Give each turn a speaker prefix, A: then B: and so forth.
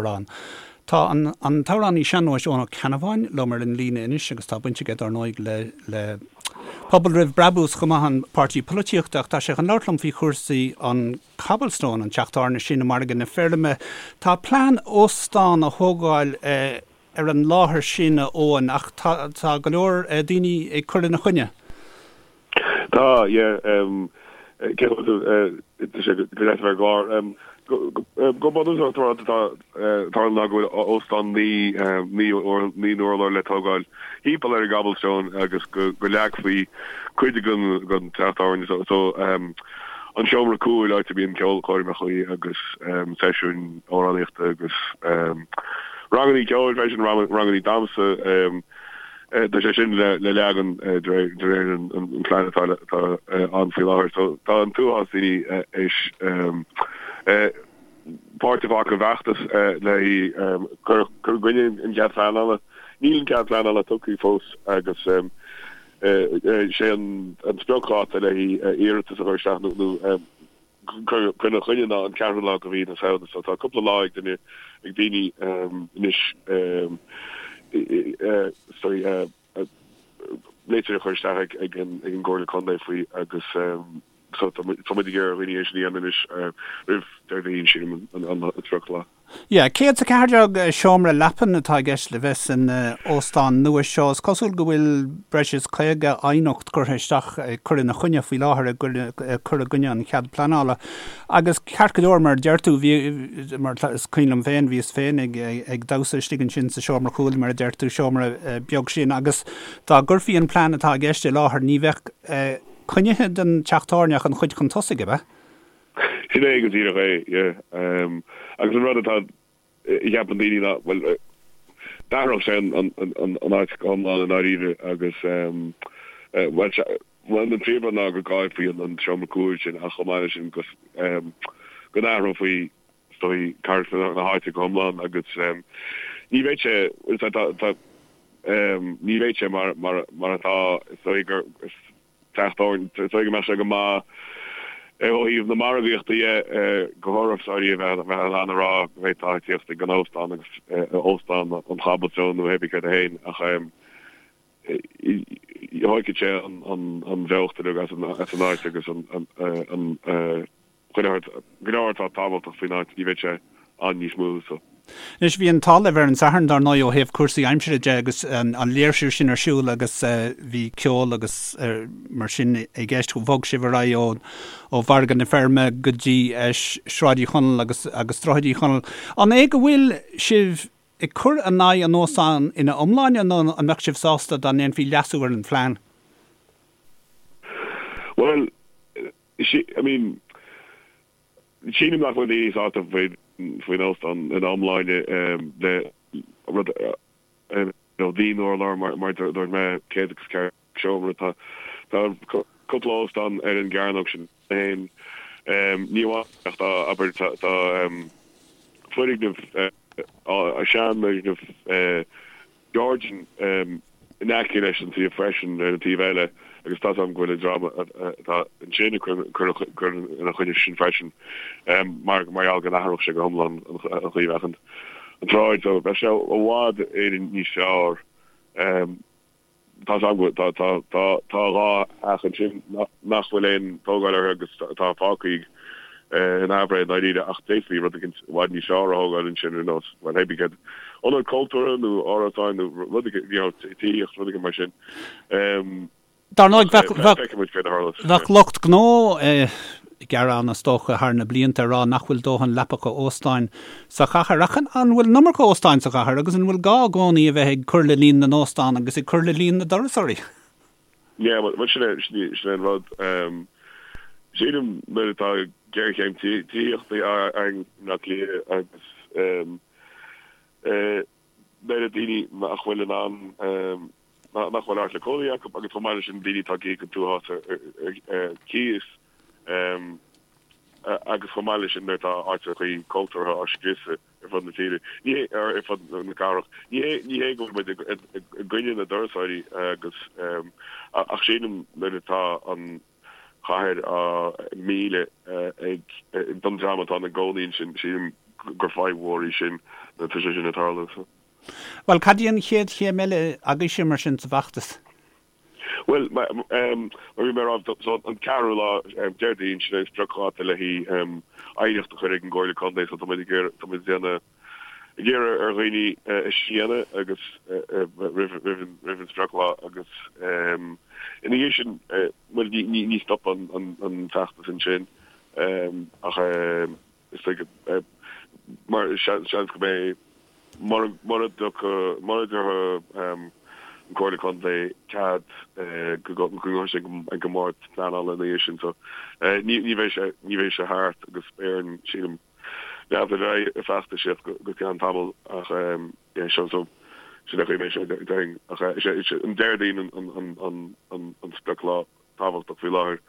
A: Amhrán. Tá an an t-amhránaí sean-nóis Eoin Ó Ceannabháin liom ar an líne anois agus tá baint aige dar ndóigh le le Pobal Roimh Brabús chomh maith, an páirtí polaitíochta, ach tá sé chun labhairt liom faoi chúrsaí an Cobblestone, an teach tábhairne sin i Margadh na Feirme. Tá plean óstán a thógáil ar an láthair sin, a Eoin, ach tá tá go leor daoine ag cur ina choinne.
B: Tá, yeah. Cén chaoi a bhfuil tú? Tá sé go deas a bheith ar an gclár. Go bunúsach, tá rud atá ag tarlú ná go bhfuil óstán 9 n-urlár le tógáil thimpeall ar an gCobblestone agus go leagfaí cuid den teach tábhairne. So, an seomra cúil, áit a mbíonn ceolchoirmeacha agus seisiúin amhránaíochta agus rangannaí ceoil freisin, rangannaí damhsa. Tá sé sin le leagan de réir an phlean atá ann faoi láthair. So tá an t-uafás daoine éis páirt a ghlacadh i bhfeachtas le cur i gcoinne an chead pleanála. Níl an cead pleanála tugtha fós agus sé an spriocdháta le iarratas a chur isteach nó cur ina choinne ná an ceathrú lá de mhí na Samhna so tá cúpla lá ag duine, ag daoine anois sorry litir a chur isteach ag an gComhairle Contae faoi agus so tá muid ag iarraidh ar dhaoine é sin a dhéanamh anois roimh Déardaoin sílim an sprioclá.
A: Yeah, 114 seomra leapan atá i gceist le bheith san óstán nua seo. Is cosúil go bhfuil breis is 50 aighneacht curtha isteach ag cur ina choinne faoi láthair, ag cur i gcoinne an chead pleanála. Agus ceart go leor, mar a deir tú, bhí, mar is cuimhin liom féin, bhíos féin ag, ag damhsa istigh ansin sa seomra cúil, mar a deir tú, seomra beag sin, agus dá gcuirfí an plean atá i gceist i láthair, ní bheadh coinnithe den teach tábhairne ach an chuid chun tosaigh, ab ea?
B: Sin é go díreach é, yeah. Agus an rud atá a cheapann daoine ná, bhuel, d'athródh sé an áit go hiomlán i ndáiríre agus, bhuel, bhuel, an príomhrud ná go gcaillfí an seomra cúil sin ach chomh maith leis sin go n-athrófaí, is dóigh, carachtar na háite go hiomlán agus ní bheidh sé, bhuel, tá, tá, ní bheidh sé mar, mar, mar atá, is dóigh gur, teach tábhairne. Is dóigh go mbeadh sé go maith ó thaobh na margaíochta dhe do thurasóirí a bheith in ann a rá go bhféadfá tíocht ag an óstán agus Óstán an Cobblestone nó hébí céard é féin ach thógfadh sé an bheocht uilig as an áit agus an Chuile shórt, go leor atá tábhachtach faoin áit, ní bheidh sé ann níos mó so.
A: Anois, bhí an t-ádh libh ar an Satharn, dar ndóigh, ó thaobh cúrsaí aimsire de agus an léirsiú sin ar siúl agus bhí ceol agus mar sin i gceist. Bhog sibh ar aghaidh ó Mhargadh na Feirme go dtí Sráid Uí Chonaill agus agus Droichead Uí Chonaill. An é go bhfuil sibh ag cur in aghaidh an óstáin ina iomláine nó an mbeadh sibh sásta dá ndéanfaí leasú ar an phlean?
B: Bhuel, I mean, sílim nach bhfuil daoine sásta faoin óstán ina iomláine le rud, you know, 9 n-urlár mar a dúirt mé, 104 seomra. Tá tá cúpla óstán ar an gcearnóg sin féin. Ní amháin ach tá, abair, tá tá foirgneamh, seanfhoirgneamh Georgian in aice leis an suíomh freisin ar an taobh eile agus tá 's agam go bhfuil an dream atá ansin ag cur ina choinne sin freisin mar gheall go n-athródh sé go hiomlán an chaoi a bheadh an tsráid. So bheadh sé i bhfad Éireann níos fearr. Tá 's agam go tá tá tá tá 2 theach ansin nach bhfuil aon tógáil orthu agus atá fágtha in aimhréidh i ndáiríre ach d'fhéadfaí rud éicint i bhfad níos fearr a thógáil ansin ar nós, bhuel, hébí céard, ionad cultúrtha nó árasáin nó rud éicint, you know, tithíocht, rud éicint mar sin.
A: Dar ndóigh, bheadh, bheadh, Feicfidh muid céard a tharlós. bheadh lucht gnó ag gearán, is dócha, thar na blianta ag rá nach bhfuil dóthain leapacha óstáin sa chathair. Ach an bhfuil an iomarca óstáin sa chathair agus an bhfuil gá i gcónaí a bheith ag cur le líon na n-óstán agus ag cur le líon na dturasóirí?
B: Yeah, bhuel, sin é, sin é an rud. Sílim nuair atá géarchéim tithíochta againn i mBleá Cliath agus nuair a daoine nach bhfuil in ann, nach bhfuil áit le cónaí acu agus chomh maith leis sin daoine atá ag íoc an t-uafás ar cíos agus chomh maith leis sin nuair atá áiteachaí cultúrtha á scriosadh ar fud na tíre, ní hé, ar fud na cathrach. Ní hé, ní hé go bhfuil muid i gcoinne na dturasóirí agus, ach sílim nuair atá an chathair á milleadh ag, don dream atá ina gcónaí ansin, sílim gur fadhb mhór í sin. Tá sé sin ag tarlú so.
A: Bhuel, cad í an chéad chéim eile agaibhse mar sin sa bhfeachtas?
B: Bhuel, mar a bhí mé a rá, so an ceathrú lá, Déardaoin, sin é an spriocdháta le haghaidh aighneacht a chur ag an gComhairle Contae, so tá muid ag iarraidh, tá muid ag déanamh, ag iarraidh ar dhaoine é sin a dhéanamh agus roimh, roimh an, roimh an sprioclá agus ina dhiaidh sin, bhuel, ní, ní, ní stopann an, an feachtas ansin ach is dóigh mar seans go mbeidh mura dtiocfaidh mura dtabharfaidh an Comhairle Contae cead go gcuirfidh sé ag an mBord Pleanála ina dhiaidh sin so ní bheidh sé ní bheidh sé thart agus beidh orainn sílim leanúint ar aghaidh ag feachtasaíocht go ceann tamaill ach yeah so so sin é an chaoi a mbeidh sé déarfainn ach is é an Déardaoin an an an an sprioclá tábhachtach faoi láthair.